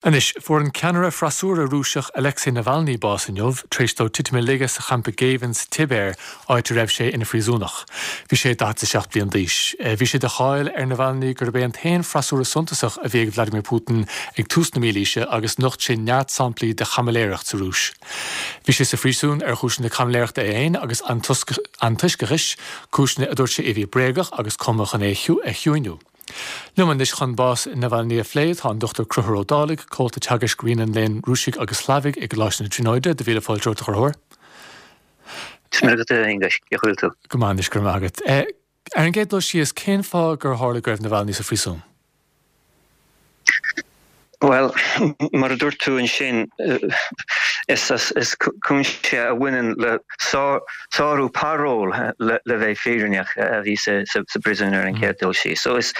Anois, fuair an ceannaire freasúra Rúiseach Alexei Navalny bás inniu, tar éis dó titim i laige sa champa géibhinn sa tSibéir, áit a raibh sé ina phríosúnach. Bhí sé 47 bliain d'aois. Bhí sé de cháil ar Navalny gurb é an t-aon freasúra suntasach a bhí ag Vladimir Putin ag tús na mílaoise agus nocht sé neart samplaí de chaimiléireacht sa Rúis. Bhí sé sa phríosún ar chúiseanna caimiléireachta é féin agus antoisceachais, cúiseanna a dúirt sé a bhí bréagach agus cumtha chun é a chiúiniú. Liom anois chun bás Navalny a phlé tá an Dr Conchúr Ó Dálaigh, Comhalta Teagaisc Roinn an Léinn Rúisigh agus Shlavaigh i gColáiste na Tríonóide. Do mhíle fáilte romhat, a Chonchúir. Is maith agat, a Aonghuis. Cén chaoi a bhfuil tú? Go maith anois, go raibh maith agat. Ar an gcéad dul síos, cén fáth gur tharla go raibh Navalny sa phríosún? Bhuel, mar a dúirt tú ansin, is cúinsí a bhaineann le sárú parole, le bheith fírinneach, a bhí sa bpríosún ar an chéad dul síos. So is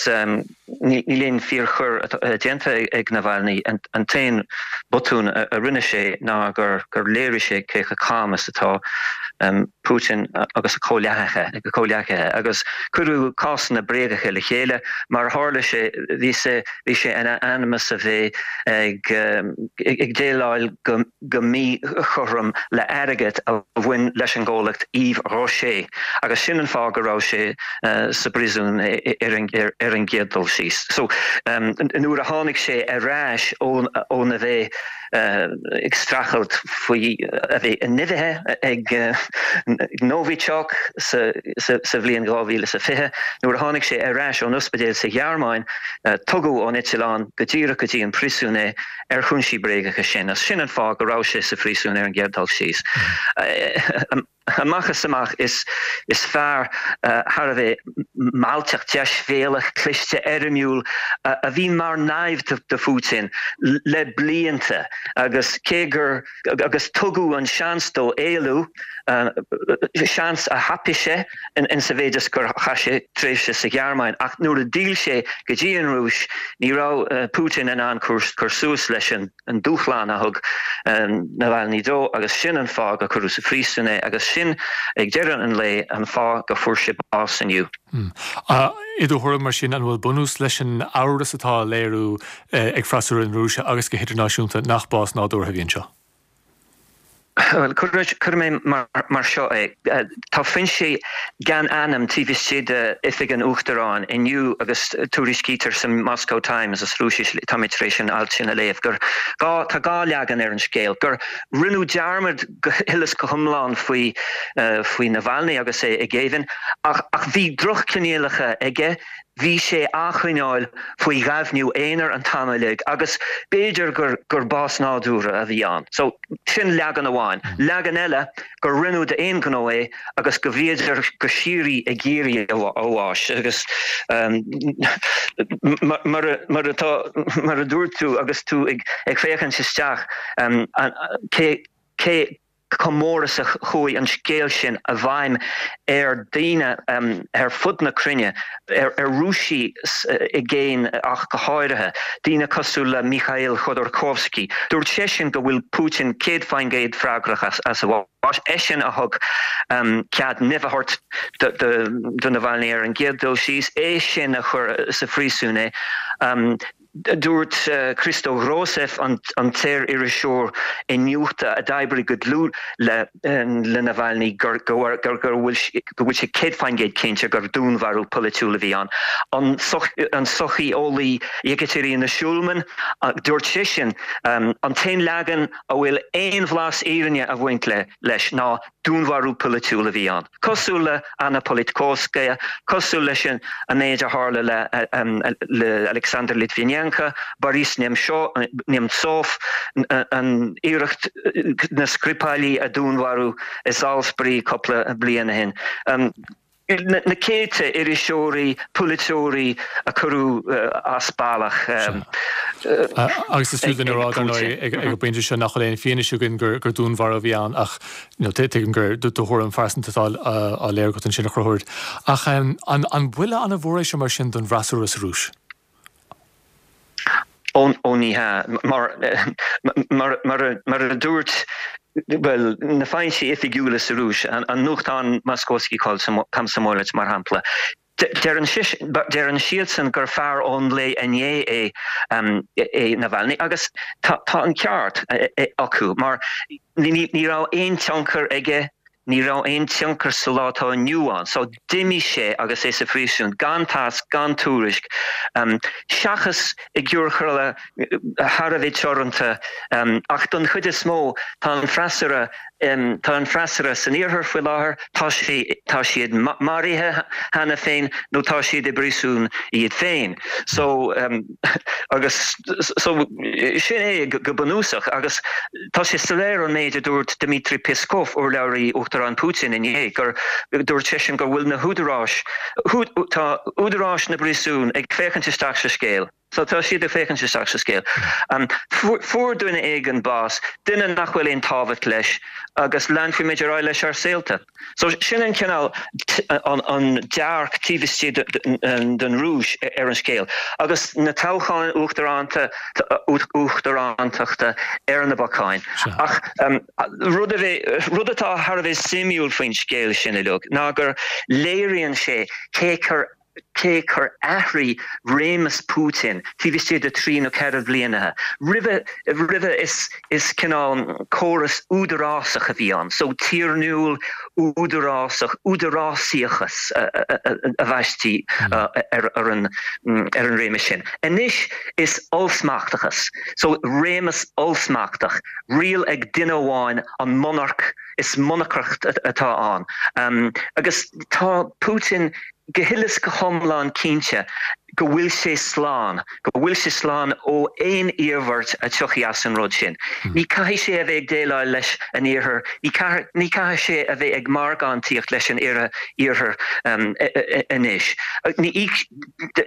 níl aon fíorchoir déanta ag Navalny. An t-aon botún a rinne sé ná gur léirigh sé cé chomh cam is atá Putin agus a chomhghleacaithe, agus cuireadh cásanna bréagacha le chéile. Mar a tharla sé, bhí sé bhí sé in ainm is a bheith ag ag déileáil go go míchothrom le airgead a bhain leis an gcomhlacht Yves Rocher, agus sin an fáth go raibh sé sa bpríosún ar an ar an gcéad dul síos. So, nuair a tháinig sé ar ais óna bheith ag streachailt faoi a bheith nimhithe ag Novichok sa bhliain 2020. Nuair a tháinig sé ar ais ón ospidéal sa Ghearmáin, tugadh ón eitleán go díreach go dtí an príosún é ar chúinsí bréagacha sin. Agus sin an fáth go raibh sé sa phríosún ar an gcéad dul síos. Amach is amach, is fear thar a bheith mealltach, deisbhéalach, cliste, éirimiúil a bhí mar naimhde do Phutin le blianta agus cé gur agus tugadh an seans dó éalú, seans a thapaigh sé in sa mhéid is gur chaith sé tréimhse sa Ghearmáin ach nuair a d'fhill sé go dtí an Rúis ní raibh Putin in ann cur suas leis an an dúshlán a thug Navalny dó agus sin an fáth gur cuireadh sa phríosún é agus sin, ag deireadh an lae, an fáth go fuair sé bás inniu. I do thuairim, mar sin, an bhfuil bunús leis an amhras atá á léiriú ag freasúra na Rúise agus go hidirnáisiúnta nach bás nádúrtha a bhí anseo? Bhuel, cuirfidh mé mar seo é. Tá foinsí gan ainm taobh istigh d'Oifig an Uachtaráin inniu agus tuairiscítear sa Moscow Times, as Rúisis, tá mé tar éis an alt sin a léamh, gur gá, tá dhá leagan ar an scéal, gur rinneadh dearmad go huile is go hiomlán faoi faoi Navalny agus é i ngéibheann ach ach bhí drochchoinníollacha aige, Bhí sé á choinneáil faoi ghaibhniú aonair an t-am uilig agus b'fhéidir gur gur bás nádúrtha a bhí ann. So, sin leagan amháin. Leagan eile, gur rinneadh d'aon ghnó é agus go bhíodar go síoraí ag iarraidh a bháis agus mar mar atá mar a dúirt tú agus tú ag ag féachaint isteach cé cé chomh mór is a chuaigh an scéal sin i bhfeidhm ar dhaoine ar fud na cruinne, ar Rúisigh i gcéin ach go háirithe, daoine cosúil le Mikhail Khodorkovsky. Dúirt seisean go bhfuil Putin 100% freagrach as a bhás, eisean a thug cead nimh a thabhairt do Navalny ar an gcéad dul síos, eisean a chuir sa phríosún é. Dúirt Christo Grozev, an t-iar-iriseoir iniúchta a d'oibrigh go dlúth le Navalny, go bhfuil sé 100% cinnte gur dúnmharú polaitiúil a bhí ann. An socheolaí Yekaterina Shulman, dúirt sise, an t-aon leagan a bhfuil aon bhlas fhírinne ag baint leis ná dúnmharú polaitiúil a bhí ann. Cosúil le Anna Politkovskaya, cosúil leis an méid a tharla le Alexander Litvinenko, Boris Nemtsov, an iarracht na Skripali a dúnmharú i Salisbury cúpla bliain ó shin. Na céadta iriseoirí, polaiteoirí a cuireadh as bealach. Agus is fiú dúinn a rá, dar ndóigh, ag an bpointe seo nach bhfuil aon fianaise againn gur dúnmharú a bhí ann ach tuigim gur do thuairim phearsanta atá á léiriú agat ansin, a Chonchúir. Ach an buille an-mhór é seo mar sin don bhfreasúra sa Rúis? Ó ní hea. Mar mar a dúirt, bhuel, na foinsí oifigiúla sa Rúis, an nuachtán Moskovsky Komsomolets mar shampla, Deireann deireann siadsan gur fear ón lae inné é é Navalny agus tá an ceart acu mar ní raibh aon tionchar aige, ní raibh aon tionchar sa lá atá inniu ann. So d'imigh sé agus é sa phríosún gan tásc, gan tuairisc, seachas i gciorcail thar a bheith teoranta ach don chuid is mó tá an freasúra tá an freasúra san iarthar faoi láthair, tá sé tá siad maraithe cheana féin nó tá siad i bpríosún iad féin. So agus so sin é go bunúsach agus tá sé soiléir ón méid a dúirt Dmitry Peskov, urlabhraí Uachtarán Putin inné, gur dúirt seisean go bhfuil na húdaráis tá údaráis na bpríosún ag féachaint isteach sa scéal. So tá siad ag féachaint isteach sa scéal. Fuair duine éigin bás, duine nach bhfuil aon tábhacht leis, agus leanfaimid ar aghaidh leis ár saolta. So sin an cineál, an dearc taobh istigh den Rúis ar an scéal. Agus na toghcháin uachtaránta, uachtarántachta ar na bacáin. Ach rud a bheith, rud atá thar a bheith suimiúil faoin scéal sin uilig ná gur léiríonn sé cé chomh cé chomh athraigh réimeas Putin taobh istigh de thrí nó ceithre bhliana. Roimhe, roimhe is, is cineál córas údarásach a bhí ann, so tiarnúil, údarásach, údarásaíochas a bhaistí ar, ar an, ar an réimeas sin. Anois is ollsmachtachas, so réimeas ollsmachtach, riail ag duine amháin, an monarc, is monarcacht atá ann. Agus tá Putin go huile is go hiomlán cinnte go bhfuil sé slán, go bhfuil sé slán ó aon iarmhairt a tiocfaidh as an rud sin. Ní caithfidh sé a bheith ag déileáil leis an Iarthar, ní ní caithfidh sé a bheith ag margántaíocht leis an Iarthar anois. Ní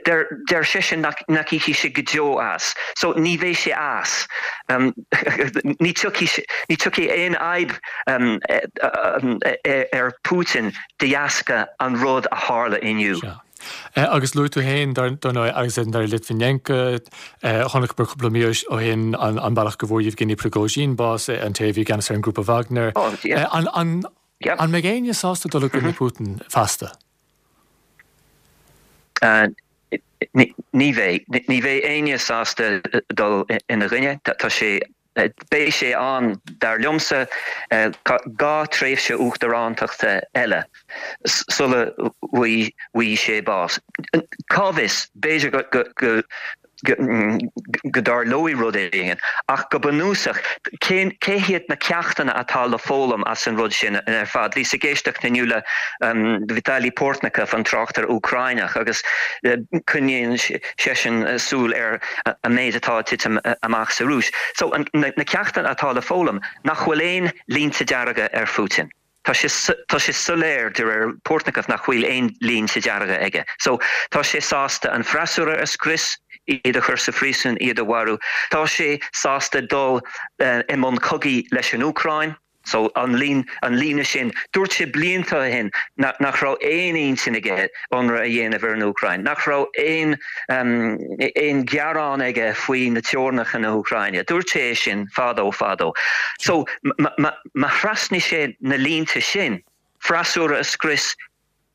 deir deir seisean nach nach íocfaidh sé go deo as. So ní bheidh sé as. Ní tiocfaidh ní tiocfaidh aon fhadhb ar Putin de dheasca an rud a tharla inniu. Sea. Agus luaigh tú féin, dar ndóigh, Alexander Litvinenko, chonaiceamar cúpla mí ó shin an bealach go bhfuair Yevgeny Prigozhin bás, an té a bhí i gceannas ar an ngrúpa Wagner. An mbeidh éinne sásta dul i gcoinne Putin feasta? Ní bheidh. Ní bheidh éinne sásta dul ina gcoinne. Tá sé Beidh sé ann, dar liomsa, 2 tréimhse uachtarántachta eile sula bhfaighidh sé bás. Cá bhfios, b'fhéidir go go dtarlóidh rud éigin, ach go bunúsach, cé hiad na ceachtanna atá le foghlaim as an rud sin ar fad? Bhíos ag éisteacht inniu le Vitaly Portnikov, an tráchtaire Úcráineach, agus coinníonn seisean súil ar an méid atá ag titim amach sa Rúis. So, na ceachtanna atá le foghlaim, nach bhfuil aon línte dearga ar Phutin. Tá sé, tá sé soiléir, de réir Portnikov, nach bhfuil aon línte dearga aige. So, tá sé sásta an freasúra a scrios, iad a chur sa phríosún, iad a mharú. Tá sé sásta dul i mbun cogaidh leis an Úcráin. So, an líne, an líne sin, dúirt sé blianta ó shin nach raibh aon intinn aige ionradh a dhéanamh ar an Úcráin, nach raibh aon, aon ghearán aige faoi na teorainneacha na hÚcráine. Dúirt sé é sin fadó, fadó. So, má thrasnaigh sé na línte sin, freasúra a scrios,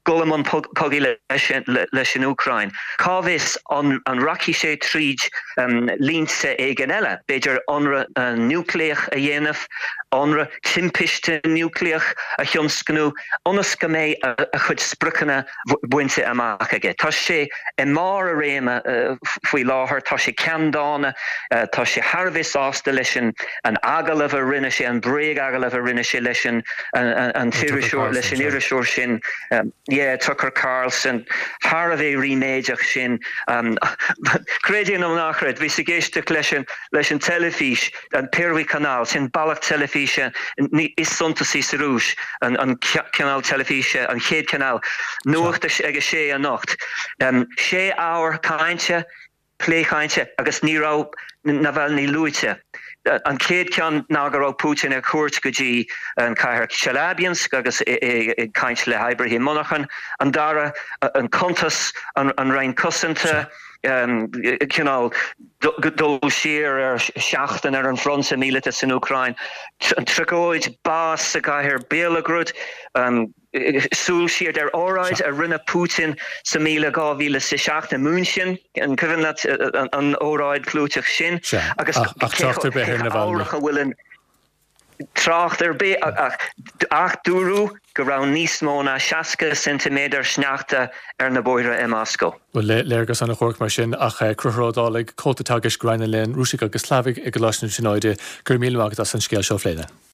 dul i mbun cogaidh leis an Úcráin. Cá bhfios an rachaidh sé tríd línte éigin eile, b'fhéidir ionradh núicléach a dhéanamh, ionradh timpiste núicléach a thionscnú, ionas go mbeidh a chuid spriocanna bainte amach aige. Tá sé i mbarr a réime faoi láthair, tá sé ceanndána, tá sé thar a bheith sásta leis an agallamh a rinne sé, an bréag-agallamh a rinne sé leis an an t-iriseoir, leis an iriseoir sin, yeah, Tucker Carlson, thar a bheith ríméadach sin. Creid é nó ná creid, bhíos ag éisteacht leis an, leis an teilifís, an Pervyi Kanal, sin bealach teilifíse is suntasaí sa Rúis, an, an cineál teilifíse, an chéad chineál, nuacht ag a sé anocht. Sé ábhar cainte, plé cainte agus ní raibh Navalny luaite. An chéad cheann ná go raibh Putin ar cuairt go dtí an chathair Chelyabinsk agus é ag caint le hoibrithe monarchan. An dara, an cuntas, an Roinn Cosanta. Cineál dul siar ar sheachtain ar an bhfronta míleata san Úcráin, an tragóid, bás sa gcathair Belgorod, súil siar ar óráid a rinne Putin sa míle 2007 i München, an cuimhin leat an óráid chlúiteach sin? Agus ach trácht ar bith ar Navalny. a bhfuil an trácht ar bith ach dúradh go raibh níos mó ná 60 ceintiméadar sneachta ar na bóithre i Moscó. Bhuel, léargas an-dhuairc mar sin, ach Conchúr Ó Dálaigh, Comhalta Teagaisc Roinn an Léinn Rúisigh agus Shlavaigh i gColáiste na Tríonóide, go raibh míle maith agat as an scéal seo a phlé linn.